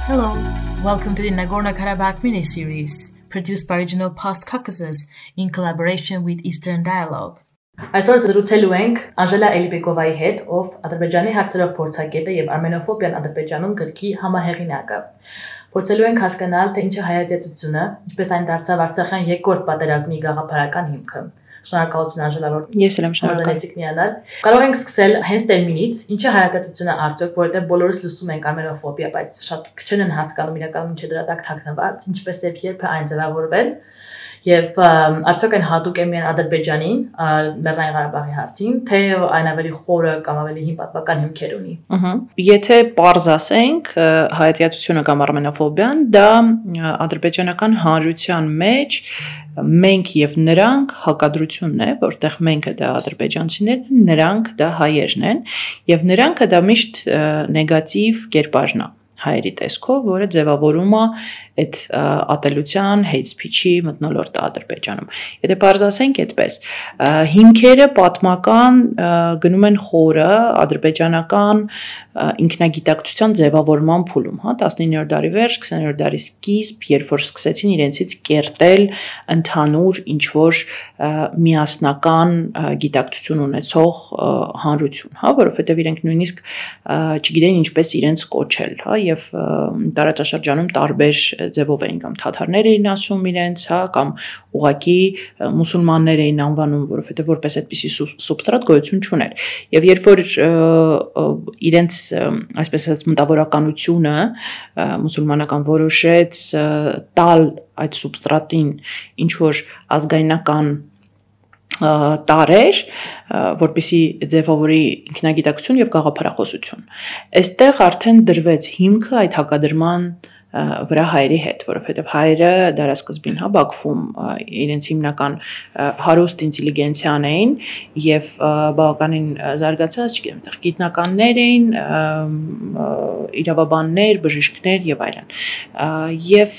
Hello, welcome to the Nagorno-Karabakh mini-series, produced by Regional Post Caucasus in collaboration with Eastern Dialogue. Այսօր զրուցելու ենք Անժելա Էլիբեկովայի հետ, ով Ադրբեջանի հարցերով փորձագետ է եւ Արմենոֆոբիան Ադրբեջանում գրքի համահեղինակը։ Փորձելու ենք հասկանալ, թե ինչ է հայատյացությունը, ինչպես այն դարձավ Արցախյան երկրորդ պատերազմի գաղափարական հիմքը։ Շնորհակալություն Անժելա, որ ես եմ շնորհակալ։ Կարող ենք սկսել հենց տերմինից, ինչ է հայատյացությունը արդյոք, որովհետեւ բոլորս լսում ենք արմենոֆոբիա, բայց շատ քչեն են հասկանում իրականում ինչ է դրա տակ թաքնված, ինչպես եւ երբ է այն ձևավորվել։ Եվ արդյոք այն հատուկ է միայն Ադրբեջանին, Լեռնային Ղարաբաղի հարցին, թե այն ավելի խորը կամ ավելի հին պատմական հիմքեր ունի։ Եթե պարզ ասենք, հայատյացությունը կամ արմենոֆոբիան դա ադրբեջանական հանրության մեջ մենք եւ նրանք հակադրությունն է, որտեղ մենքը դա ադրբեջանցիներն են, նրանք դա հայերն են, եւ նրանքը դա միշտ նեգատիվ կերպարն է հայերի տեսքով, որը ձևավորում է այդ ատելության, hate speech-ի մթնոլորտը Ադրբեջանում։ Եթե բարձ ասենք այդպես, հիմքերը պատմական գնում են խորը ադրբեջանական ինքնագիտակցության ձևավորման փուլում, 19-րդ դարի վերջ, 20-րդ դարի սկիզբ, երբ որ սկսեցին իրենցից կերտել ընդհանուր ինչ-որ միասնական գիտակցություն ունեցող հանրություն, որովհետև իրենք նույնիսկ չգիտեն ինչպես իրենց կոչել, եւ տարածաշրջանում տարբեր ձևով էին կամ թաթարներ էին ասում իրենց, կամ ուղղակի մուսուլմաններ էին անվանում, որովհետև որպես այդպիսի սուբստրատ գոյություն չուներ։ Եվ երբ որ իրենց այսպես ասած մտավորականությունը մուսուլմանական որոշեց տալ այդ սուբստրատին ինչ որ ազգայնական տարեր, որպեսի ձևավորի ինքնագիտակցություն եւ գաղափարախոսություն։ Այստեղ արդեն դրվեց հիմքը այդ հակադրման վրա հայերի հետ, որովհետև հայերը դարասկզբին Բաքվում իրենց հիմնական հարուստ ինտելիգենցիան էին եւ բավականին զարգացած, չգիտեմ, այդտեղ գիտնականներ էին, իրավաբաններ, բժիշկներ եւ այլն։ Եվ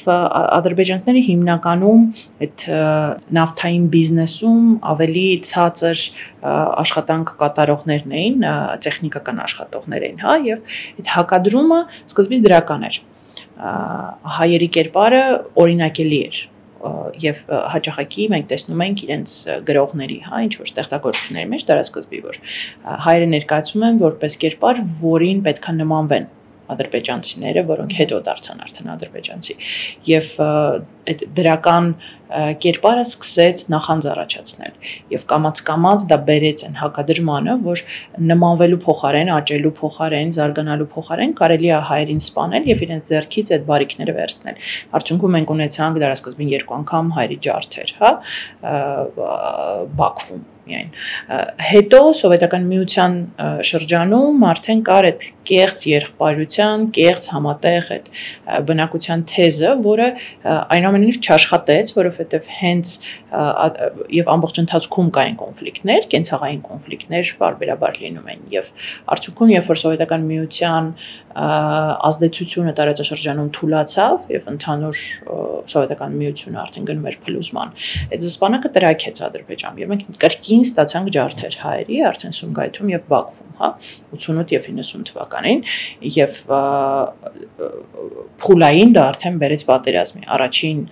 ադրբեջանցիները հիմնականում այդ նավթային բիզնեսում ավելի ցածր աշխատանք կատարողներն էին, տեխնիկական աշխատողներ էին, եւ այդ հակադրումը սկզբից դրական էր։ Հայերի կերպարը օրինակելի էր եւ հաճախակի մենք տեսնում ենք իրենց գրողների, ինչ որ ստեղծագործությունների մեջ դարասկզբի, որ հայերը ներկայացում են որպես կերպար, որին պետքա նմանվեն ադրբեջանցիները, որոնք հետո դարձան արդեն ադրբեջանցի, եւ այդ դրական կերպարը սկսեց նախանձ առաջացնել եւ կամաց դա բերեց այն հակադրմանը, որ նմանվելու փոխարեն, աճելու փոխարեն, զարգանալու փոխարեն կարելի է հայերին սպանել եւ իրենց ձեռքից այդ բարիկները վերցնել։ Արդյունքում մենք ունեցանք դարասկզբին 2 անգամ հայերի ջարդեր, Բաքվում միայն։ Հետո սովետական միության շրջանում արդեն կար այդ կեղծ եղբայրության, կեղծ համատեղ այդ բնակության թեզը, որը այնուամենայնիվ չաշխատեց, որովհետև հենց եւ ամբողջ ընթացքում կային կոնֆլիկտներ, կենցաղային կոնֆլիկտներ բարբերաբար լինում են եւ արդյունքում երբ որ սովետական միության ազդեցությունը տարածաշրջանում թուլացավ եւ ընդհանուր սովետական միությունը արդեն գնում էր փլուզման, այդ զսպանակը տրաքեց Ադրբեջանում եւ մենք կրկին ստացանք ջարդեր հայերի արդեն Սումգայիթում եւ Բաքվում, 88 եւ 90 թվականին եւ փուլային դա արդեն բերեց պատերազմի, առաջին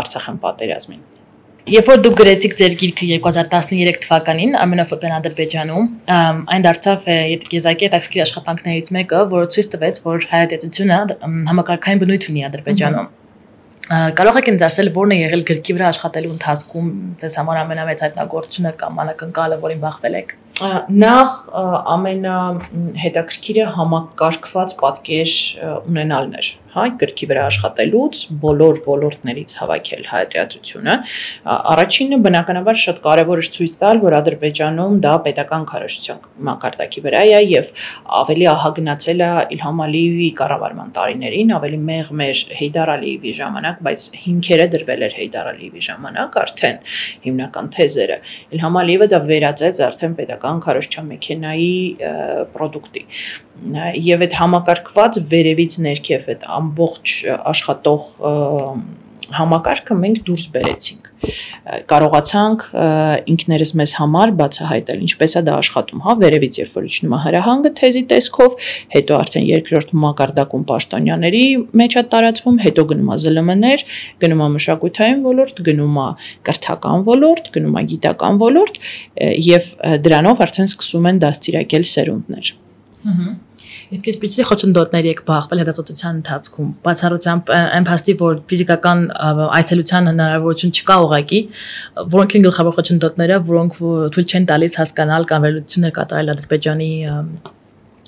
Արցախյան պատերազմին։ Երբ որ դուք գրեցիք ձեր գիրքը 2013 թվականին Արմենոֆոբիան Ադրբեջանում, այն դարձավ եզակի հետաքրքիր աշխատանքներից մեկը, որը ցույց տվեց, որ հայատյացությունը համակարգային բնույթ ունի Ադրբեջանում։ Կարող եք ինձ ասել, որն է եղել գրքի վրա աշխատելու ընթացքում ձեզ համար ամենամեծ հայտնագործությունը կամ անակնկալը, որին բախվել եք։ Նախ ամենահետաքրքիրը համակարգված պատկեր ունենալն էր, գրքի վրա աշխատելուց բոլոր ոլորտներից հավաքել հայատյացությունը։ Առաջինը բնականաբար շատ կարևոր է ցույց տալ, որ Ադրբեջանում դա պետական քարոզչության մակարդակի վրա է եւ ավելի ահագնացել է Իլհամ Ալիևի կառավարման տարիներին, ավելի մեղմ էր Հեյդար Ալիևի ժամանակ, բայց հիմքերը դրվել էր Հեյդար Ալիևի ժամանակ արդեն հիմնական թեզերը։ Իլհամ Ալիևը դա վերածեց արդեն պետական քարոզչության մեքենայի պրոդուկտի։ Եվ այդ համակարգված վերևից ներքև այդ ամբողջ աշխատող համակարգը մենք դուրս բերեցինք։ Կարողացանք ինքներս մեզ համար բացահայտել ինչպես է դա աշխատում, հա, վերևից երբ որ իջնում է հրահանգը թեզի տեսքով, հետո արդեն երկրորդ մակարդակում պաշտոնյաների մեջ է տարածվում, հետո գնում է ԶԼՄ-ներ, գնում է մշակութային ոլորտ, գնում է կրթական ոլորտ, գնում է գիտական ոլորտ եւ դրանով արդեն սկսում են դաստիարակել սերունդներ։ Իսկ ինչպիսի խոչընդոտներ եք բախվել հետազոտության ընթացքում, բացառությամբ այն փաստի, որ ֆիզիկական այցելության հնարավորություն չկա ուղղակի, որոնք են գլխավոր խոչընդոտները, որոնք թույլ չեն տալիս հասկանալ կամ վերլուծություններ կատարել Ադրբեջանի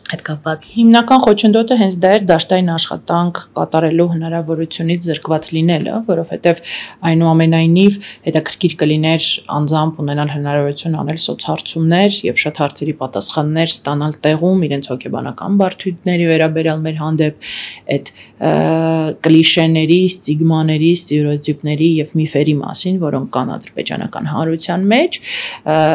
հետ կապված։ Հիմնական խոչընդոտը հենց դա էր դաշտային աշխատանք կատարելու հնարավորությունից զրկված լինելը, որովհետև այնուամենայնիվ հետաքրքիր կլիներ անձամբ ունենալ հնարավորություն անել սոցհարցումներ եւ շատ հարցերի պատասխաններ ստանալ տեղում իրենց հոգեբանական բարդությունների վերաբերյալ մեր հանդեպ այդ կլիշեների, ստիգմաների, ստերեոտիպների եւ միֆերի մասին, որոնք կան ադրբեջանական հանրության մեջ,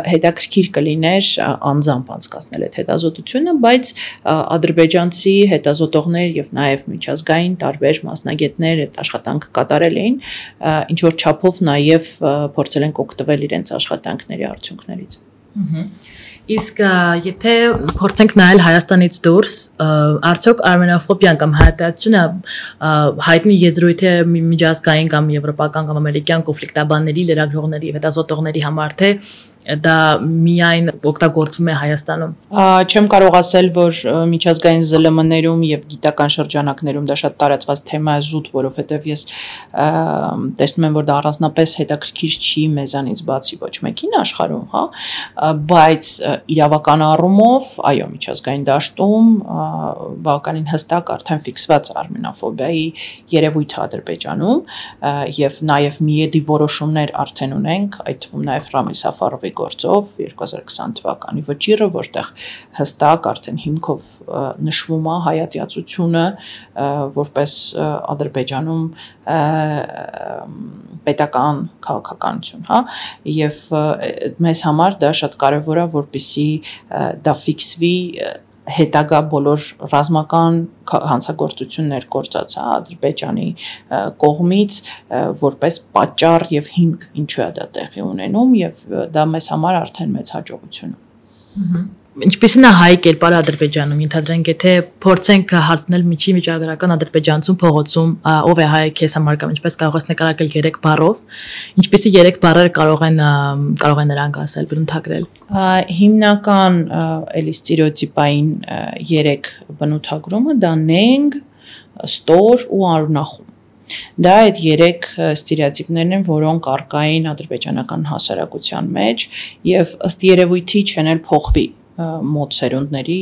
հետաքրքիր կլիներ անձամբ անցկացնել այդ հետազոտությունը, բայց ադրբեջանցի հետազոտողներ եւ նաեւ միջազգային տարբեր մասնագետներ այդ աշխատանքը կատարել էին, ինչ որ չափով նաեւ փորձել են օգտվել իրենց աշխատանքների արդյունքներից։ Իսկ եթե փորձենք նայել Հայաստանից դուրս, արդյոք արմենոֆոբիան կամ հայտարարությունը հայտնի եզրույթ է միջազգային կամ եվրոպական կամ ամերիկյան կոնֆլիկտաբանների, լրագրողների, հետազոտողների համար, թե դա միայն օգտագործվում է Հայաստանում։ Չեմ կարող ասել, որ միջազգային ԶԼՄ-ներում եւ գիտական շրջանակներում դա շատ տարածված թեմա է զուտ, որովհետեւ ես տեսնում եմ, որ դա առանձնապես հետաքրքիր չի մեզանից բացի ոչ մեկին աշխարհում, հա, բայց իրավական առումով, այո, միջազգային դաշտում բավականին հստակ արդեն ֆիքսված արմենոֆոբիայի երևույթ է Ադրբեջանում եւ նաեւ միեդի որոշումներ արդեն ունենք, այդ թվում նաեւ Ռամիլ Սաֆարովի գործով 2020 թվականի վճիռը, որտեղ հստակ արդեն հիմքով նշվում է հայատյացությունը որպես Ադրբեջանում պետական քաղաքականություն, հա, եւ մեզ համար դա շատ կարեւոր է, որպեսզի դա ֆիքսվի հետագա բոլոր ռազմական հանցագործություններ գործած է Ադրբեջանի կողմից որպես պատճառ եւ հիմք ինչու է դա տեղի ունենում եւ դա մեզ համար արդեն մեծ հաջողություն է։ Ինչպիսին է հայ կերպարը Ադրբեջանում, ենթադրենք, եթե փորձենք հարցնել միջի միջագրական ադրբեջանցում փողոցում ով է հայ քեզ համար կամ ինչպես կարող ես նկարագրել 3 բառով, ինչպիսի 3 բառեր կարող են նրանք ասել, բնութագրել։ Հիմնական էլի ստերեոտիպային 3 բնութագրումը դա նենք, ստոր ու արունախում։ Դա այդ 3 ստերեոտիպներն են, որոնք առկային ադրբեջանական հասարակության մեջ եւ ըստ երևույթի չեն էլ փոխվի մոտ սերունդների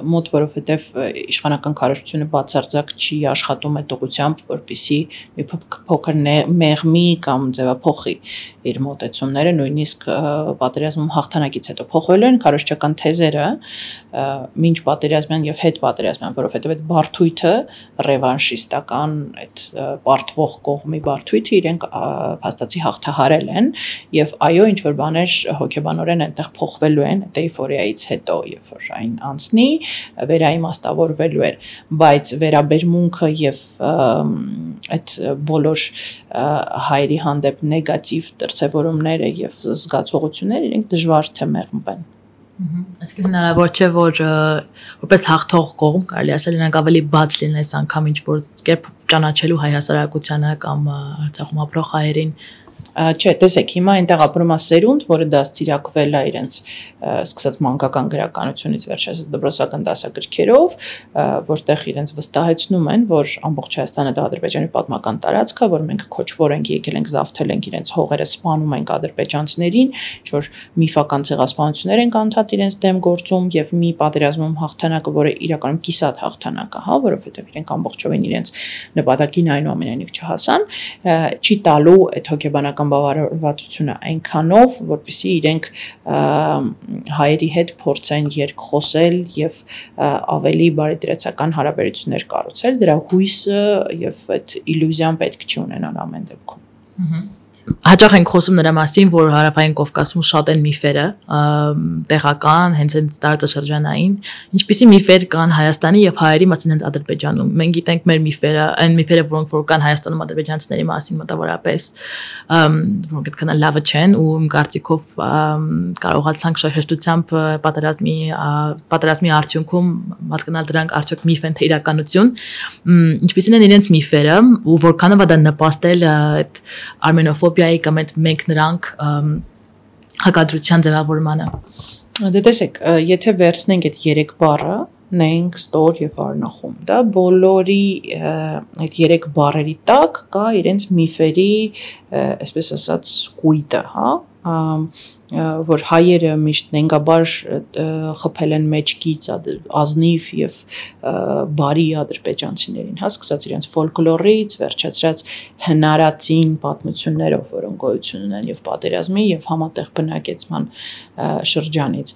մոտ, որովհետև իշխանական քարոզությունը բացարձակ չի աշխատում այդ ուղղությամբ, որպեսզի մի փոքր մեղմի կամ ձևափոխի իր մոտեցումները, նույնիսկ պատերազմում հաղթանակից հետո փոխվելու են քարոզչական թեզերը մինչ պատերազմյան եւ հետ պատերազմյան, որովհետև այդ բարդույթը ռևանշիստական այդ բարդվող կողմի բարդույթը իրենք փաստացի հաղթահարել են եւ այո, ինչ որ բաներ հոգեբանորեն այնտեղ փոխվելու են էйֆորիայից հետո, երբ որ այն անցնի, վերաիմաստավորվելու էր, բայց վերաբերմունքը եւ այդ բոլոր հայերի հանդեպ նեգատիվ դրսևորումները եւ զգացողությունները իրենք դժվար թե մեղմվեն։ Այսինքն հնարավոր չէ, որ որպես հաղթող կողմ կարելի ասել նրանք ավելի բաց լինեն այս անգամ ինչ որ կերպ ճանաչելու հայ հասարակությանը կամ Արցախում ապրող հայերին։ Չէ, տեսեք, հիմա այնտեղ ապրում է սերունդ, որը դաստիարակվել է իրենց սկսած մանկական գրականությունից վերջերս դպրոցական դասագրքերով, որտեղ իրենց վստահեցնում են, որ ամբողջ Հայաստանը դա Ադրբեջանի պատմական տարածք է, որ մենք քոչվոր ենք եկել ենք, զավթել ենք իրենց հողերը, սպանում ենք ադրբեջանցիներին, ինչ որ միֆական ցեղասպանություններ են անդադ իրենց դեմ գործում եւ մի պատերազմում հաղթանակը, որը իրականում կիսատ հաղթանակ է, հա, որովհետեւ իրենք ամբողջովին իրենց նպատակին այնուամենայնիվ չհասան, չի տալու այդ հոգեբանական բավարարվածությունը այնքանով, որպեսզի իրենք հայերի հետ փորձեն երկխոսել եւ ավելի բարեդրացական հարաբերություններ կառուցել, դրա հույսը եւ այդ իլյուզիան պետք չի ունենալ ամեն դեպքում։ հաճախ ենք խոսում նրա մասին, որ Հարավային Կովկասում շատ են միֆերը, տեղական, հենց տարածաշրջանային, ինչպիսի միֆեր կան Հայաստանի եւ հայերի մասին հենց Ադրբեջանում։ Մենք գիտենք մեր միֆերը, այն միֆերը, որոնք որ կան Հայաստանում ադրբեջանցիների մասին մոտավորապես, որոնք այդքան լավը չեն ու իմ կարծիքով կարողացանք շահեշտությամբ պատերազմի արդյունքում հասկանալ դրանք արդյոք միֆ են թե իրականություն, ինչպիսին են իրենց միֆերը ու որքանով դա նպաստել այդ արմենոֆոբիայի կամ այդ մենք նրանք հակադրության ձևավորմանը։ Դե տեսեք, եթե վերցնենք այդ 3 բառը, նենք, ստոր եւ արնախում, դա բոլորի այդ 3 բառերի տակ կա իրենց միֆերի, այսպես ասած, կույտը, հա, որ հայերը միշտ նենգաբար խփել են մեջքից ազնիվ եւ բարի ադրբեջանցիներին, հա, սկսած իրենց ֆոլկլորից, վերջացրած հնարածին պատմություններով, որոնք գոյություն ունեն եւ պատերազմի եւ համատեղ բնակեցման շրջանից,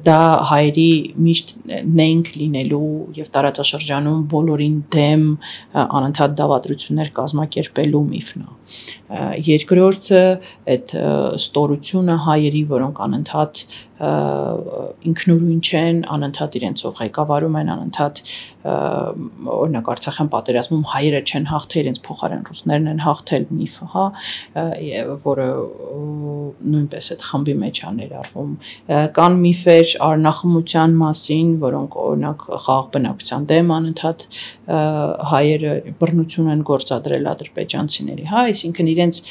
դա հայերի միշտ նենք լինելու եւ տարածաշրջանում բոլորին դեմ անընդհատ դավադրություններ կազմակերպելու միֆն է։ Երկրորդը այդ ստորությունը հայերի, որոնք անընդհատ ինքնուրույն չեն, անընդհատ իրենցով ղեկավարում են, անընդհատ օրինակ Արցախյան պատերազմում հայերը չեն հաղթել, իրենց փոխարեն ռուսներն են հաղթել միֆը, հա, որը նույնպես այդ խմբի մեջ է ներառվում։ Կան միֆեր արնախմության մասին, որոնք օրինակ խաղաղ բնակության դեմ անընդհատ հայերը բռնություն են գործադրել ադրբեջանցիների, հա, այսինքն իրենց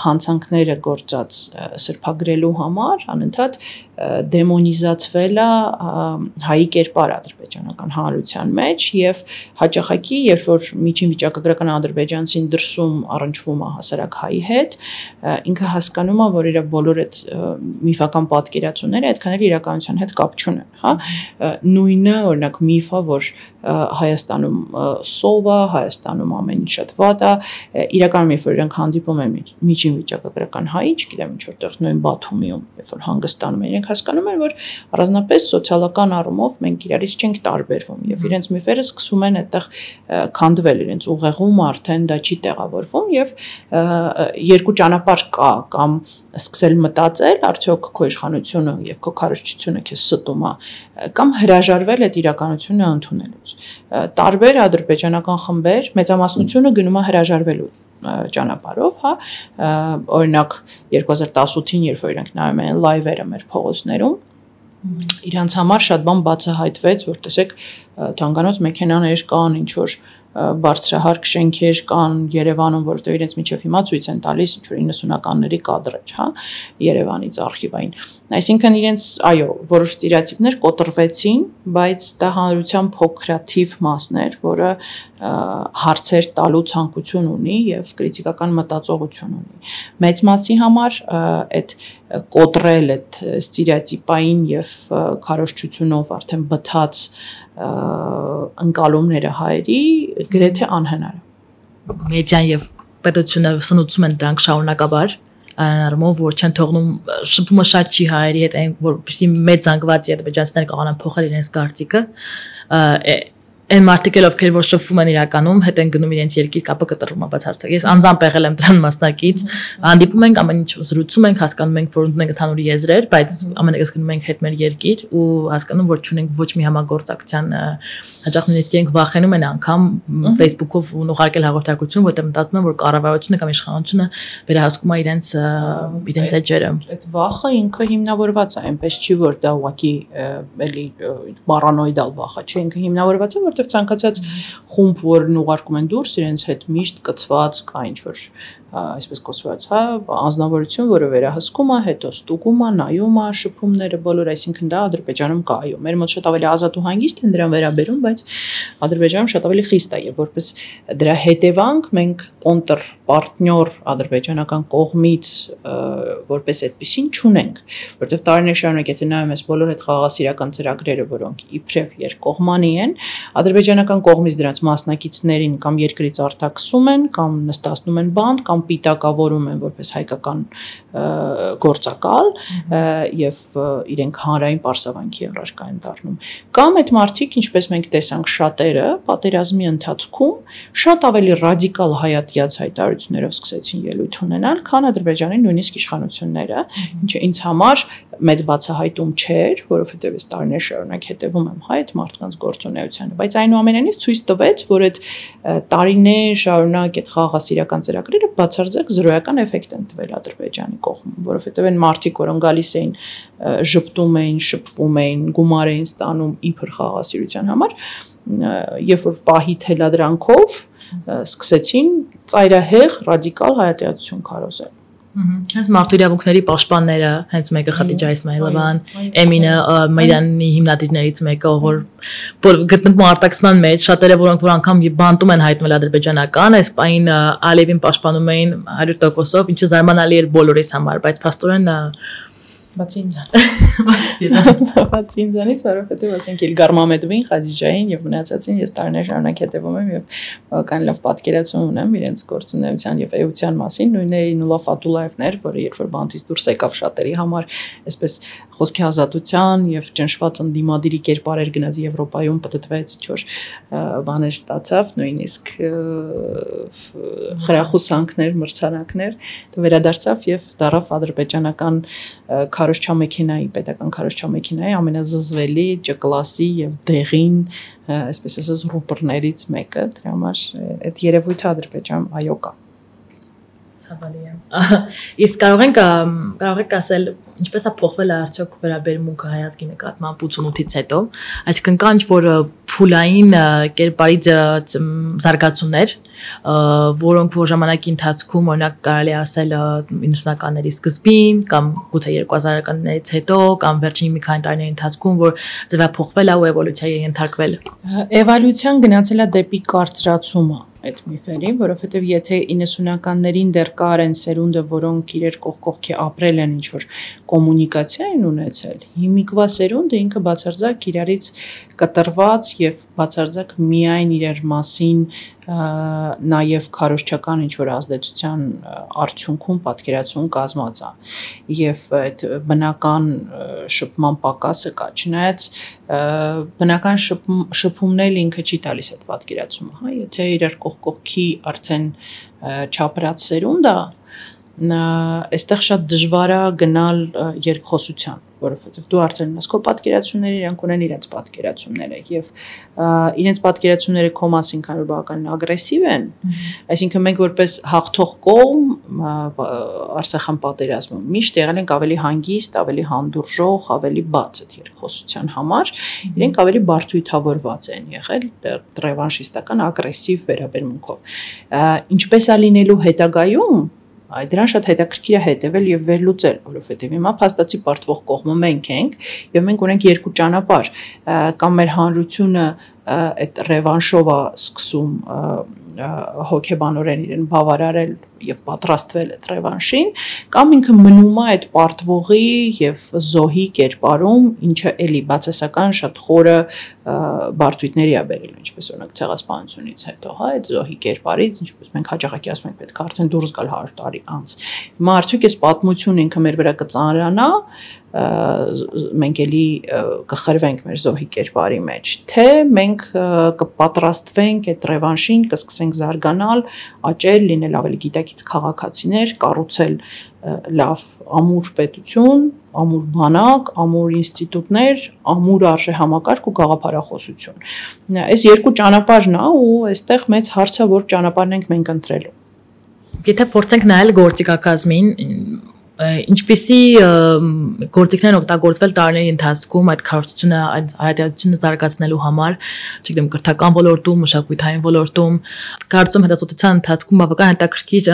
հանցանքները գործած սրբագրելու համար անընդհատ դեմոնիզացվել է հայի կերպարը ադրբեջանական հանրության մեջ եւ հաճախակի երբ որ միջին վիճակագրական ադրբեջանցին դրսում առնչվում է հասարակ հայի հետ, ինքը հասկանում է, որ իր բոլոր այդ միֆական պատկերացումները այդքան էլ իրականության հետ կապ չունեն, հա, նույնը օրինակ միֆը, որ Հայաստանում սով է, Հայաստանում ամեն ինչ շատ վատ է, իրականում երբ որ իրենք հանդիպում են միջին վիճակագրական հայի, չգիտեմ ինչ որտեղ նույն Բաթումիում, երբ որ հանգստանում են, իրենք հասկանում են, որ առանձնապես սոցիալական առումով մենք իրարից չենք տարբերվում եւ իրենց միֆերը սկսում են այդտեղ քանդվել, իրենց ուղեղում արդեն դա չի տեղավորվում եւ երկու ճանապարհ կա, կամ սկսել մտածել, արդյոք քո իշխանությունը եւ քո քարոզչությունը քեզ ստում է, կամ հրաժարվել այդ իրականությունը ընդունելուց։ Տարբեր ադրբեջանական խմբեր մեծամասնությունը գնում է հրաժարվելու ճանապարհով, հա, օրինակ 2018-ին, երբ որ իրանք նայում են լայվերը մեր փողոցներում, իրանց համար շատ բան բացահայտվեց, որ տեսեք, թանկանոց մեքենաներ կան, ինչ որ բարձրահարկ շենքեր կան Երևանում, որովհետև իրենց միջև հիմա ցույց են տալիս ինչ որ 90-ականների կադրեր, հա, Երևանից արխիվային։ Այսինքն իրենց, այո, որոշ ստերեոտիպներ կոտրվեցին, բայց դա հանրության փոքրաթիվ մասն էր, որը հարցեր տալու ցանկություն ունի եւ կրիտիկական մտածողություն ունի։ Մեծ մասի համար այդ կոտրել այդ ստերեոտիպային եւ քարոզչությունով արդեն բթած ընկալումները հայերի գրեթե անհնար է։ Մեդիան եւ պետությունը սնուցում են դրանք շարունակաբար, առումով որ չեն թողնում շփումը շատ չի հայերի հետ, որպեսզի մեծ զանգված ադրբեջանցիները կարողանան փոխել իրենց կարծիքը, այն մարդիկ ովքեր որ շփվում են իրականում, հետ են գնում իրենց երկիր կապը կտրվում է բացարձակ։ Ես անձամբ եղել եմ դրան մասնակից, հանդիպում ենք, ամեն ինչ զրուցում ենք, հասկանում ենք, որ ունենք ընդհանուր եզրեր, բայց ամենևս գնում ենք հետ մեր երկիր ու հասկանում, որ չունենք ոչ մի համագործակցության հաճախ նույնիսկ իրենք վախենում են անգամ Facebook-ով ուղարկել հաղորդակցություն, որտեղ մտածում են, որ կառավարությունը կամ իշխանությունը վերահսկում է իրենց էջերը։ Այդ վախը ինքը հիմնավորված է, այնպես չի որ դա ուղղակի էլի պարանոիդալ վախ է, չէ, ինքը հիմնավորված է, որտեղ ցանկացած խումբ, որն ուղարկում են դուրս, իրենց հետ միշտ կծված կա ինչ որ այսպես կոչված, հա, անձնավորություն, որը վերահսկում է, հետո ստուգում է, նայում է, շփումները բոլոր, այսինքն դա Ադրբեջանում կա, այո, մեր մոտ շատ ավելի ազատ ու հանգիստ են դրան վերաբերում, բայց Ադրբեջանում շատ ավելի խիստ է եւ որպես դրա հետևանք մենք կոնտր պարտնյոր ադրբեջանական կողմից որպես այդպեսին չունենք, որովհետեւ տարիներ շարունակ եթե նայում ես բոլոր այդ խաղաղասիրական ծրագրերը, որոնք իբրև երկկողմանի են, ադրբեջանական կողմից դրանց մասնակիցներին կամ երկրից արտաքսում են, կամ նստացնում են բանտ, կամ պիտակավորում են որպես հայկական գործակալ եւ իրենք հանրային պարսավանքի առարկա են դառնում։ Կամ այդ մարդիկ, ինչպես մենք տեսանք շատերը, պատերազմի ընթացքում շատ ավելի ռադիկալ հայատյաց հայտարարություններով սկսեցին ելույթ ունենալ, քան Ադրբեջանի նույնիսկ իշխանությունները, ինչը ինձ համար մեծ բացահայտում չէր, որովհետև այս տարիներ շարունակ հետևում եմ այդ մարդկանց գործունեությանը, բայց այնուամենայնիվ ցույց տվեց, որ այդ տարիներ շարունակ այդ խաղաղասիրական ծրագրերը բացարձակ զրոյական էֆեկտ են տվել Ադրբեջանի կողմում, որովհետև այն մարդիկ, որոնք գալիս էին, ժպտում էին, շփվում էին, գումար էին ստանում իբր խաղաղասիրության համար, երբ որ պահի թելադրանքով սկսեցին ծայրահեղ ռադիկալ հայատյացություն քարոզել։ Հենց մարդու իրավունքների պաշտպանները, հենց մեկը Խադիջա Իսմայիլովան, Էմինը Մայդանի հիմնադիրներից մեկը, որ գտնվում արտաքսման մեջ, շատերը որոնք որ անգամ բանտում են հայտնվել ադրբեջանական, այս պայն Ալիևին պաշտպանում էին 100%-ով, ինչը զարմանալի էր բոլորիս համար, բայց փաստորեն բացի ինձանից, որովհետև ասենք Իլգար Մամեդովին, Խադիջային եւ մնացածին ես տարիներ շարունակ հետևում եմ եւ բավական լավ պատկերացում ունեմ իրենց գործունեության եւ էության մասին, նույնն է Նուլա Ֆաթուլաևն էր, որը երբ որ բանտից դուրս եկավ շատերի համար, այսպես խոսքի ազատության եւ ճնշված ընդդիմադիրի կերպարեր գնաց Եվրոպայում, պատտվեց ինչ-որ բաներ ստացավ, նույնիսկ խրախուսանքներ, մրցանակներ, վերադարձավ եւ դարավ ադրբեջանական քարոզչամեքենայի, պետական քարոզչամեքենայի ամենազզվելի Ջ-կլասի եւ դեղին, այսպես ասած, ռուպորներից մեկը, դրա համար այդ երևույթը Ադրբեջան այո կա։ Ցավալի է։ Իսկ կարող եք ասել ինչպես է փոխվել արդյոք վերաբերմունքը հայացքի նկատմամբ 88-ից հետո, այսինքն կան ինչ-որ փուլային կերպարի զարգացումներ, որոնք որ ժամանակի ընթացքում օրինակ կարելի ասել 90-ականների սկզբին կամ գուցե 2000-ականներից հետո կամ վերջին մի քանի տարիների ընթացքում, որ ձևափոխվել է ու էվոլյուցիայի ենթարկվել։ Էվոլյուցիան գնացել է դեպի կարծրացումը այդ միֆերին, որովհետև եթե 90-ականներին դեռ կար են սերունդը, որոնք իրեր կողքի ապրել են ինչ-որ կոմունիկացիա են ունեցել, հիմիկվա սերունդը ինքը բացարձակ իրարից կտրված եւ բացարձակ միայն իրար մասին նաև քարոզչական ինչ-որ ազդեցության արդյունքում պատկերացում կազմած է եւ այդ բնական շփման պակասը կա, չնայած բնական շփումն ինքը չի տալիս այդ պատկերացումը, հա, եթե իրար կողքի արդեն չապրած սերունդ է, այստեղ շատ դժվար է գնալ երկխոսության, որովհետև դու արդեն ունես քո պատկերացումները, իրանք ունեն իրենց պատկերացումները եւ իրենց պատկերացումները քո մասին քանի բավականին ագրեսիվ են, այսինքն մենք որպես հաղթող կողմ Արցախյան պատերազմում միշտ եղել ենք ավելի հանգիստ, ավելի հանդուրժող, ավելի բաց այդ երկխոսության համար, իրենք ավելի բարդույթավորված են եղել ռևանշիստական ագրեսիվ վերաբերմունքով, ինչպես է լինելու հետագայում դրան շատ հետաքրքիր է հետևել եւ վերլուծել, որովհետեւ հիմա փաստացի պարտվող կողմը մենք ենք եւ մենք ունենք երկու ճանապարհ, կամ մեր հանրությունը այդ ռևանշով է սկսում հոգեբանորեն իրեն բավարարել եւ պատրաստվել այդ ռևանշին, կամ ինքը մնում է այդ պարտվողի եւ զոհի կերպարում, ինչը էլի բացասական շատ խորը բարդույթների է բերել, ինչպես օրինակ ցեղասպանությունից հետո, հա, այդ զոհի կերպարից, ինչպես մենք հաճախակի ասում ենք, պետք է արդեն դուրս գալ 100 տարի անց։ Հիմա արդյոք այս պատմությունը ինքը մեր վրա կծանրանա, մենք էլի կխրվենք մեր զոհի կերպարի մեջ, թե մենք կպատրաստվենք այդ ռևանշին, կսկսենք զարգանալ, աճել, լինել ավելի գիտակից քաղաքացիներ, կառուցել լավ ամուր պետություն, ամուր բանակ, ամուր ինստիտուտներ, ամուր արժեհամակարգ ու գաղափարախոսություն։ Այս երկու ճանապարհն է ու այստեղ մեծ հարց է, որ ճանապարհն ենք մենք ընտրելու։ Եթե փորձենք նայել գործիքակազմին, ինչպիսի գործիքներ են օգտագործվել տարիների ընթացքում այդ քարոզությունը, այդ հայատյացությունը զարգացնելու համար, չգիտեմ, կրթական ոլորտում, մշակութային ոլորտում, կարծում հետազոտության ընթացքում բավական հետաքրքիր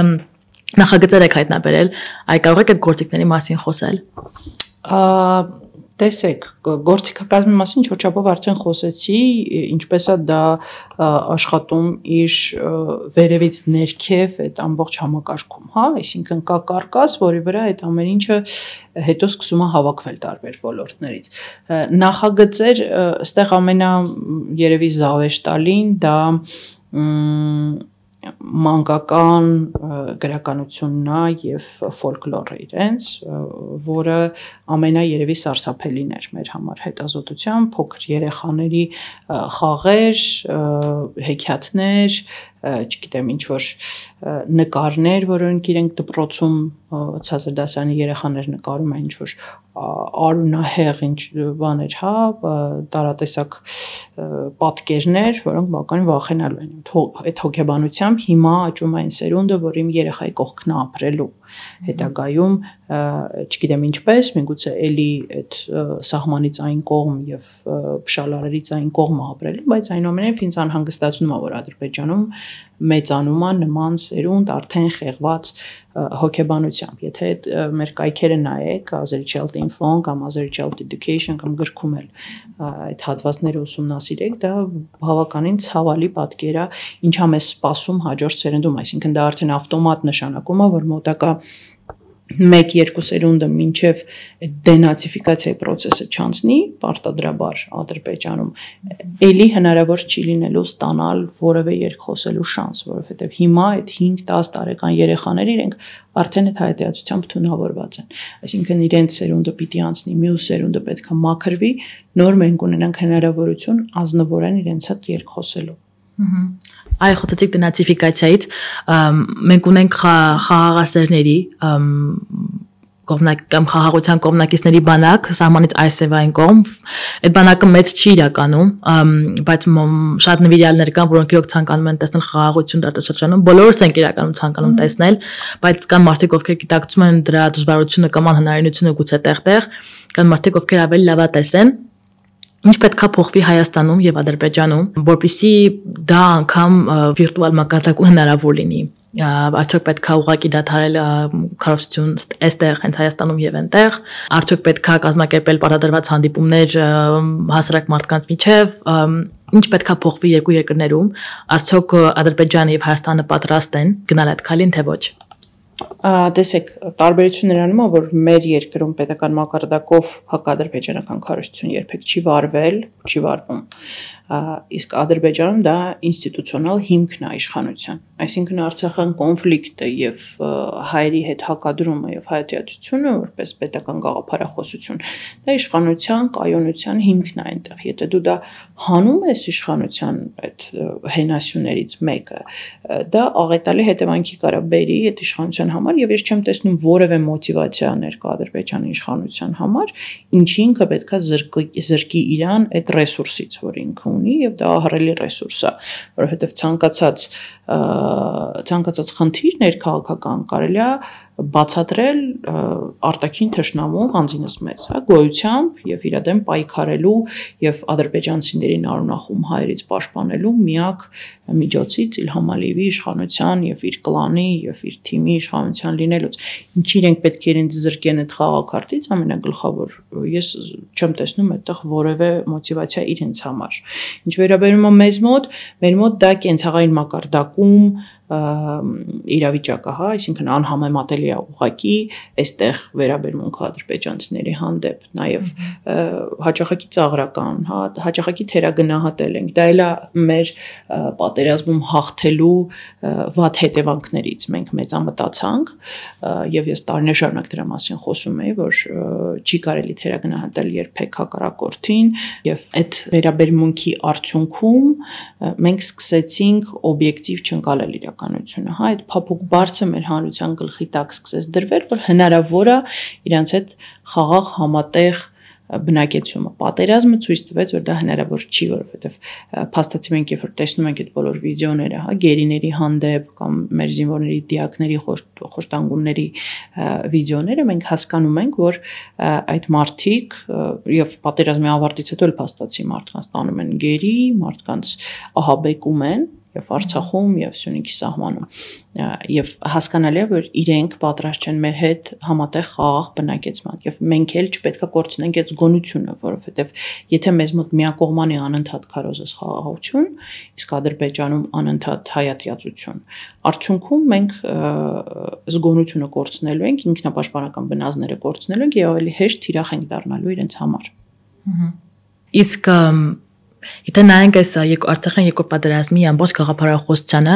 նախագծեր եք հայտնաբերել, այ կարող եք այդ գործիքների մասին խոսել։ Տեսեք, գործիքակազմի մասին չորչապով արդեն խոսեցի, ինչպես է դա աշխատում իր վերևից ներքև այդ ամբողջ համակարգում, հա, այսինքն կա կարկաս, որի վրա այդ ամեն ինչը հետո սկսում է հավաքվել տարբեր ոլորտներից։ Նախագծեր, այստեղ ամենա երևի զավեշտալին դա մանկական գրականությունն է եւ ֆոլկլորը իրենց, որը ամենաերևի սարսափելին էր մեր համար հետազոտության, փոքր երեխաների խաղեր, հեքիաթներ, չգիտեմ ինչ որ նկարներ, որոնք իրենք դպրոցում ցածր դասարանի երեխաներ նկարում են ինչ որ արունահեղ ինչ բաներ, հա, տարատեսակ պատկերներ, որոնք բավականին վախենալու են։ Այդ հոգեբանությամբ հիմա աճում է այն սերունդը, որ իմ երեխայի կողքն է ապրելու հետագայում, չգիտեմ ինչպես, միգուցե էլի այդ սահմանից այն կողմ եւ փշալարերից այն կողմը ապրելու, բայց այնուամենայնիվ ինձ անհանգստացնում է, որ Ադրբեջանում մեծանում է նման սերունդ արդեն խեղված հոգեբանությամբ։ Եթե մեր կայքերը նայեք, Azerchild.info կամ Azerchild Education կամ գրքում էլ այդ հատվածները ուսումնասիրեք, դա բավականին ցավալի պատկեր է, ինչա մեզ սպասում հաջորդ սերունդում, այսինքն դա արդեն ավտոմատ նշանակում է, որ մոտակա 1-2 սերունդը մինչև դենացիֆիկացիայի process-ը չանցնի, պարտադրաբար Ադրբեջանում, էլի հնարավոր չի լինելու ստանալ որևէ երկխոսելու շանս, որովհետև հիմա այդ 5-10 տարեկան երեխաները իրենք արդեն այդ հայտարարությամբ թունավորված են։ Այսինքն իրենց սերունդը պիտի անցնի, մյուս սերունդը պետք է մաքրվի, նոր մենք ունենանք հնարավորություն ազնվորեն իրենց հետ երկխոսելու։ Այ խոսեցիք դենացիֆիկացիայից, մենք ունենք խաղաղասերների կամ խաղաղության կողմնակիցների բանակ, սահմանից այսևային կողմ, այդ բանակը մեծ չի իրականում, բայց շատ նվիրյալներ կան, որոնք իրոք ցանկանում են տեսնել խաղաղություն տարածաշրջանում, բոլորս ենք իրականում ցանկանում տեսնել, բայց կան մարդիկ, ովքեր գիտակցում են դրա դժվարությունը կամ անհնարինությունը գուցե տեղ, կան մարդիկ, ովքեր ավելի լավատես են։ Ինչ պետք է փոխվի Հայաստանում եւ Ադրբեջանում, որպեսզի դա անգամ վիրտուալ մակարդակում հնարավոր լինի։ Արդյոք պետք է ուղղակի դադարել քարոզություն այստեղ, հենց Հայաստանում եւ այնտեղ, արդյոք պետք է կազմակերպել պարտադրված հանդիպումներ հասարակ մարդկանց միջև, ինչ պետք է փոխվի երկու երկրներում, արդյոք Ադրբեջանը եւ Հայաստանը պատրաստ են գնալ այդ քայլին, թե ոչ։ Տեսեք, տարբերությունն նրանում է, որ մեր երկրում պետական մակարդակով հակադրբեջանական քարոզություն երբեք չի վարվում, իսկ Ադրբեջանում դա ինստիտուցիոնալ հիմքն է իշխանության, այսինքն Արցախյան կոնֆլիկտը եւ հայերի հետ հակադրումը եւ հայատյացությունը որպես պետական գաղափարախոսություն, դա իշխանության կայունության հիմքն է այնտեղ, եթե դու դա հանում ես իշխանության այդ հենասյուներից մեկը, դա աղետալի հետևանքի կարա բերի այդ իշխանության համար եւ ես չեմ տեսնում որևէ մոտիվացիա ներկա Ադրբեջանի իշխանության համար, ինչի ինքը պետքա զրկի իրան այդ ռեսուրսից, որ ինքը ունի եւ դա ահռելի ռեսուրս է, որովհետեւ ցանկացած խնդիր ներքաղաքական կարելի է բացատրել արտաքին թշնամու անձինս մեծ, հա, գոյությամբ եւ իր դեմ պայքարելու եւ ադրբեջանցիներին արունախում հայերից պաշտպանելու միակ միջոցից Իլհամ Ալիևի իշխանության եւ իր կլանի եւ իր թիմի իշխանության լինելուց։ Ինչ իրենք պետք է իրենց զրկեն այդ խաղակարտից, ամենագլխավոր ես չեմ տեսնում այդտեղ որևէ մոտիվացիա իրենց համար։ Ինչ վերաբերում է մեր մոտ դա կենցաղային մակարդակում իրավիճակը, հա, այսինքն անհամեմատելի է ուղղակի այստեղ վերաբերմունքը ադրբեջանցիների հանդեպ, նաև հաճախակի ծաղրական, հա, հաճախակի թերագնահատել ենք, դա էլ է մեր պատերազմում հաղթելու վատ հետևանքներից մենք մեծամտացանք եւ ես տարիներ շարունակ դրա մասին խոսում եի, որ չի կարելի թերագնահատել երբեք հակառակորդին եւ այդ վերաբերմունքի արդյունքում մենք սկսեցինք օբյեկտիվ չընկալել իրականությունը, հա, այդ փափուկ բարձը մեր հանրության գլխի տակ սկսեց դրվել, որ հնարավոր է իրանց հետ խաղաղ համատեղ բնակեցումը։ Պատերազմը ցույց տվեց, որ դա հնարավոր չի, որովհետև փաստացի մենք երբ որ տեսնում ենք այդ բոլոր վիդեոները, հա, գերիների հանդեպ կամ մեր զինվորների դիակների խոշտանգումների վիդեոները, մենք հասկանում ենք, որ այդ մարդիկ եւ պատերազմի ավարտից հետո էլ փաստացի մարդկանց տանում են գերի, մարդկանց ահաբեկում են եւ Արցախում եւ Սյունիքի սահմանում եւ հասկանալի է որ իրենք պատրաստ չեն մեր հետ համատեղ խաղաղ բնակեցման եւ մենք էլ չպետք է կորցնենք այդ զգոնությունը, որովհետեւ եթե մեզ մոտ միակողմանի անընդհատ քարոզես խաղաղություն, իսկ Ադրբեջանում անընդհատ հայատյացություն, արդյունքում մենք զգոնությունը կորցնելու ենք, ինքնապաշտպանական բնազդները կորցնելու ենք եւ ավելի հեշտ թիրախ ենք դառնալու իրենց համար։ Իսկ Եթե նայենք այս Արցախյան երկրորդ պատերազմի ամբողջ գաղափարախոսությանը,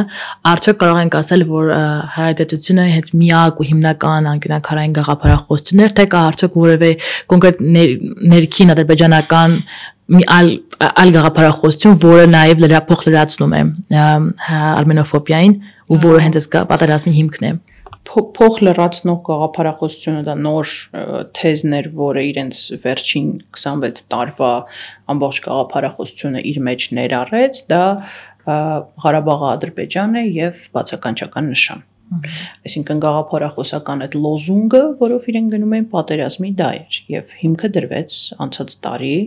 արդյոք կարող ենք ասել, որ հայատյացությունը հենց միակ ու հիմնական անկյունաքարային գաղափարախոսությունն էր, թե կա արդյոք որևէ կոնկրետ ներքին ադրբեջանական մի այլ գաղափարախոսություն, որը նաև լրացնում է արմենոֆոբիային ու որը հենց այս պատերազմի հիմքն է։ Փոխ լրացնող գաղափարախոսությունը դա նոր թեզներ, որը իրենց վերջին 26 տարվա ամբողջ գաղափարախոսությունը իր մեջ ներառեց, դա Ղարաբաղը Ադրբեջան է եւ բացականչական նշան։ Այսինքն գաղափարախոսական այդ լոզունգը, որով իրեն գնում են պատերազմի դա էր եւ հիմքը դրվեց անցած տարի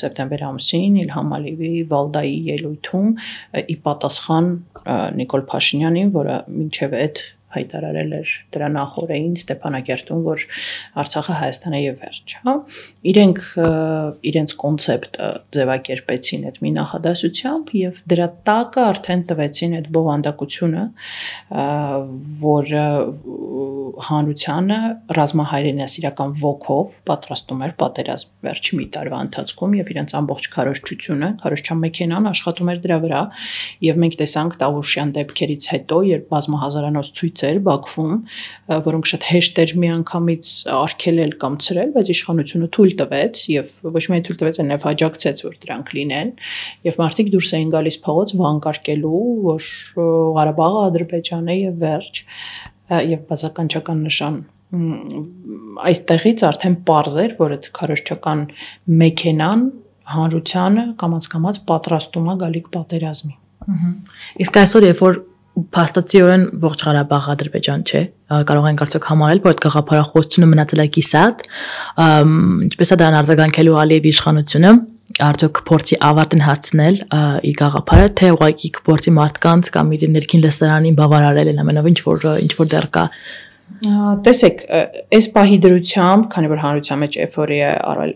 սեպտեմբեր ամսին Իլհամ Ալիևի Վալդայի ելույթում ի պատասխան Նիկոլ Փաշինյանին, որը մինչև այդ հայտարարել էր դրա նախորդին Ստեփանակերտում, որ Արցախը Հայաստան է եւ վերջ, հա։ Իրենց կոնցեպտը ձևակերպեցին այդ մի նախադասությամբ եւ դրա տակը արդեն տվեցին այդ բովանդակությունը, որ հանրությանը ռազմահայրենասիրական ոգով պատրաստում էր պատերազմ վերջի մի տարվա ընթացքում եւ իրենց ամբողջ քարոզչությունը, քարոզչական մեքենան աշխատում էր դրա վրա եւ մենք տեսանք Տավուշյան դեպքերից հետո, երբ բազմահազարանոց ցույց Բաքվում, որոնք շատ հեշտ էր միանգամից արգելել կամ ցրել, բայց իշխանությունը թույլ տվեց եւ ոչ միայն թույլ տվեց, այլև աջակցեց, որ դրանք լինեն, եւ մարդիկ դուրս էին գալիս փողոց վանկարկելու, որ Ղարաբաղը Ադրբեջան է եւ վերջ, եւ բացականչական նշան այստեղից արդեն պարզ էր, որ այդ քարոզչական մեքենան հանրությանը կամաց-կամաց պատրաստում է գալիք պատերազմի։ Իսկ այսօր երբ որ փաստացիորեն ողջ Ղարաբաղը Ադրբեջան չէ, կարող ենք արդյոք համարել, որ այդ գաղափարախոսությունը մնացել է կիսատ, ինչպես է դրան արձագանքելու Ալիևի իշխանությունը, արդյոք փորձի ավարտին հասցնել իր գաղափարը, թե ուղղակի փորձի մարդկանց կամ իր ներքին լսարանին բավարարել են ամենով ինչ որ դեռ կա։ Տեսեք, այս պահի դրությամբ, քանի որ հանրության մեջ էֆորիա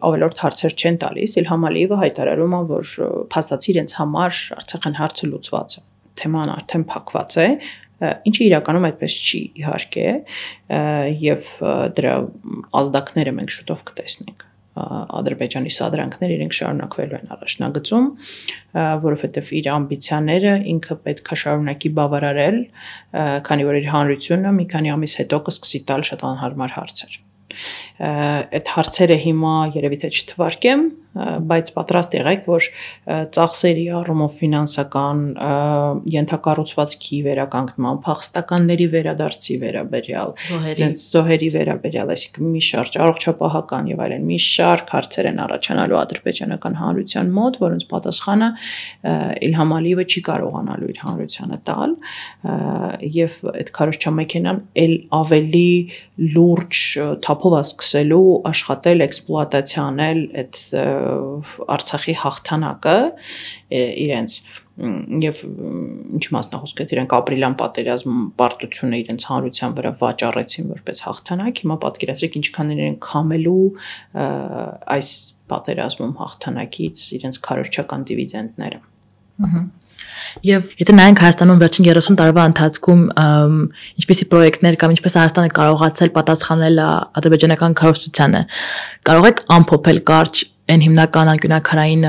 ավելորդ հարցեր չեն տալիս, Իլհամ Ալիևը հայտարարում է, որ փաստացի իրենց համար Արցախյան հարցը լուծված է, թեման արդեն փակված է, ինչը իրականում այդպես չի իհարկե, եւ դրա ազդակները մենք շուտով կտեսնենք։ Ադրբեջանի սադրանքները իրենք շարունակվելու են առաջնագծում, որովհետև իր ամբիցիաները ինքը պետք է շարունակի բավարարել, քանի որ իր հանրությունը մի քանի ամիս հետո կսկսի տալ շատ անհարմար հարցեր։ Այդ հարցերը հիմա երևի թե չթվարկեմ, բայց պատրաստ եղեք, որ ծախսերի առումով ֆինանսական ենթակառուցվածքի վերականգնման, փախստականների վերադարձի վերաբերյալ, զոհերի վերաբերյալ, այսինքն մի շարք առողջապահական եւ այլն մի շարք հարցեր են առաջանալու ադրբեջանական հանրության մոտ, որոնց պատասխանը Իլհամ Ալիևը չի կարողանալու իր հանրությանը տալ, եւ այդ քարոզչական մեքենան ել ավելի լուրջ թափով սկսելու աշխատել, էքսպլուատացիա անել այդ Արցախի հաղթանակը իրենց եւ ինչ մասնախոսք է իրենք ապրիլյան պատերազմ պարտությունը իրենց հանրության վրա վաճառեցին որպես հաղթանակ, հիմա պատկերացրեք ինչքան իրենք քամելու այս պատերազմում հաղթանակից իրենց քարոզչական դիվիդենդները։ Եվ եթե նայենք Հայաստանում վերջին 30 տարվա ընթացքում ինչպիսի պրոյեկտներ կամ ինչպես Հայաստանը կարողացել պատասխանել ադրբեջանական քարոզչությանը, կարող եք ամփոփել կարճ այն հիմնական անկյունաքարային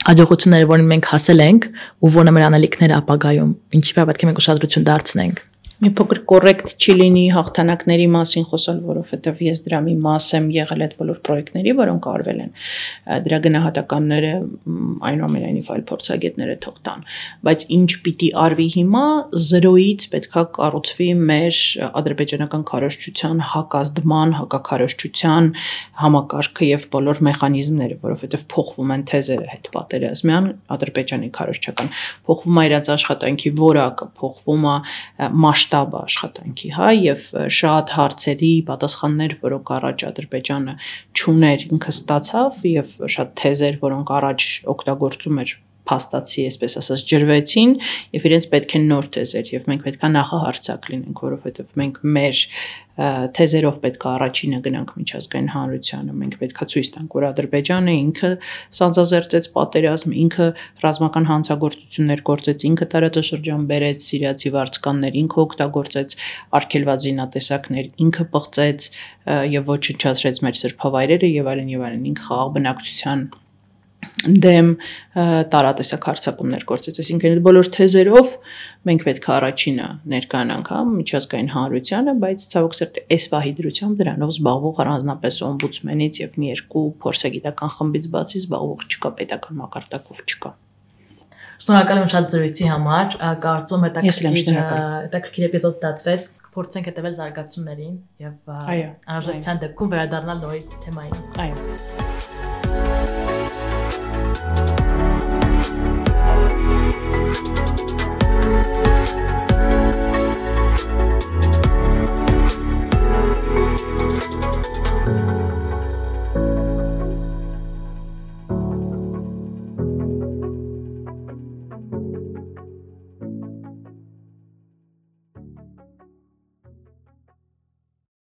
հաջողությունները, որին մենք հասել ենք ու որոնը մեր անելիքները ապագայում, ինչի վրա պետք է մենք ուշադրություն դարձնենք։ Մի փոքր կոռեկտ չի լինի հաղթանակների մասին խոսալ, որովհետև ես դրա մի մաս եմ եղել այդ բոլոր պրոյեկտների, որոնք արվել են։ Դրա գնահատականները այնուամենայնիվ այլ փորձագետները թող տան, բայց ինչ պիտի արվի հիմա 0-ից պետքա կառուցվի մեր ադրբեջանական քարոզչության հակազդման, հակաքարոզչության համակարգը եւ բոլոր մեխանիզմները, որովհետև փոխվում են թեզերը հետ պատերազմյան ադրբեջանի քարոզչական, փոխվում է իրաց աշխատանքի որակը, փոխվում է շտաբը աշխատանքի, հա, եւ շատ հարցերի պատասխաններ, որոնք առաջ Ադրբեջանը չուներ, ինքը ստացավ եւ շատ թեզեր, որոնք առաջ օգտագործում էր փաստացի, այսպես ասած, ջրվեցին եւ իրենց պետք է նոր թեզեր եւ մենք պետքա նախահարցակ լինենք, որովհետեւ մենք մեր թեզերով պետքա առաջինը գնանք միջազգային հանրությանը, մենք պետքա ցույց տանք, որ Ադրբեջանը ինքը սանձազերծեց պատերազմ, ինքը ռազմական հանցագործություններ գործեց, ինքը տարածաշրջան բերեց սիրիացի վարձկաններ, ինքը օգտագործեց արգելված զինատեսակներ, ինքը պղծեց եւ ոչնչացրեց մեր սրբավայրերը եւ այլն, ինքը խաղաղ բնակչության դեմ տարատեսակ հարձակումներ գործեց, այսինքն այդ բոլոր թեզերով մենք պետք է առաջինը ներկայանանք միջազգային հանրությանը, բայց ցավոք սերտի այս պահի դրությամբ դրանով զբաղվող առանձնապես օմբուդսմենից եւ մի երկու փորձագիտական խմբից բացի զբաղվող չկա, պետական մակարդակով չկա։ Շնորհակալ եմ շատ զրույցի համար, կարծում հետաքրքիր էպիզոդ ստացվեց, փորձենք հետևել զարգացումներին եւ անհրաժեշտության դեպքում վերադառնալ նորից թեմային։ Այո։